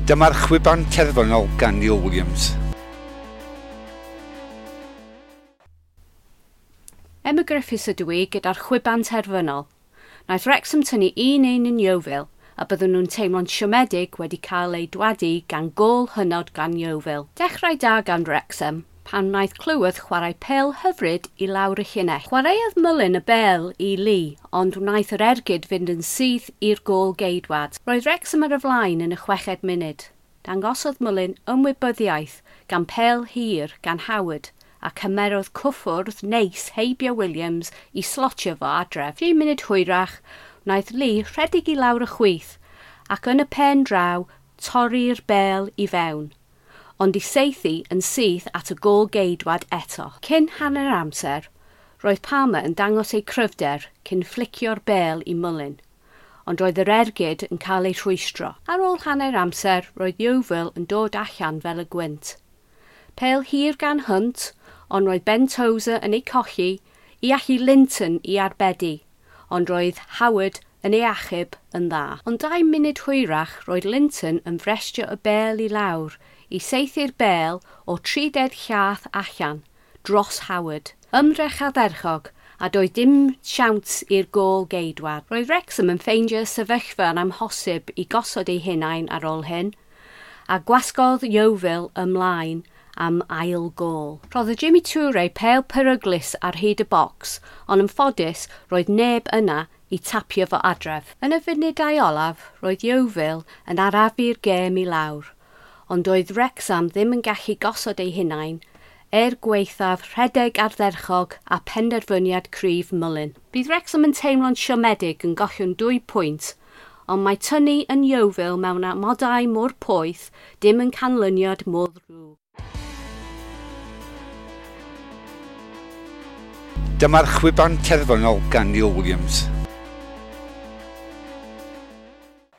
Dyma'r chwiban terfynol gan Neil Williams. Emma Griffiths ydw i gyda'r chwiban terfynol. Wnaeth Wrexham tynnu 1-1 yn Yeovil a byddwn nhw'n teimlo'n siomedig wedi cael eu dwadu gan gôl hynod gan Yeovil. Dechrau da gan Wrexham pan wnaeth Cleworth chwarae pêl hyfryd i lawr y llinell. Chwaraeodd Mullin y bêl i Lee, ond wnaeth yr ergyd fynd yn syth i'r gôl geidwad. Roedd Wrexham ar y flaen yn y 6fed munud. Dangosodd Mullin ymwybyddiaeth gan pêl hir gan Howard a cymerodd cwffwrdd neis heibio Williams i slotio fo adref. 3 munud hwyrach, wnaeth Lee rhedeg i lawr y chwith ac yn y pen draw torri'r bêl i fewn, ond i saethu yn syth at y gôl geidwad eto. Cyn hanner amser, roedd Palmer yn dangos ei cryfder cyn fflicio'r bêl i Mullin, ond roedd yr ergyd yn cael ei rhwystro. Ar ôl hanner amser, roedd Yeovil yn dod allan fel y gwynt. Pêl hir gan Hunt, ond roedd Ben Tozer yn ei colli i allu Linton i arbedu, ond roedd Howard yn ei achub yn dda. Ond 2 munud hwyrach roedd Linton yn frestio y bêl i lawr i saethu'r bêl o 30 llath allan dros Howard. Ymdrech ardderchog a doedd dim siawns i'r gôl geidwad. Roedd Wrexham yn ffeindio sefyllfa yn amhosib i gosod eu hunain ar ôl hyn, a gwasgodd Yeovil ymlaen am ail gôl. Rhoddodd Jimmy Toure pêl peryglus ar hyd y bocs, ond yn ffodus roedd neb yna i tapio fo adref. Yn y funudau olaf, roedd Yeovil yn arafu'r gêm i lawr, ond doedd Wrexham ddim yn gallu gosod eu hunain er gwaethaf rhedeg ardderchog a penderfyniad cryf Mullin. Bydd Wrexham yn teimlo'n siomedig yn gollwng 2 pwynt, ond mae tynnu yn Yeovil mewn amodau mor poeth dim yn canlyniad mor ddrwg. Dyma'r chwiban terfynol gan Neil Williams.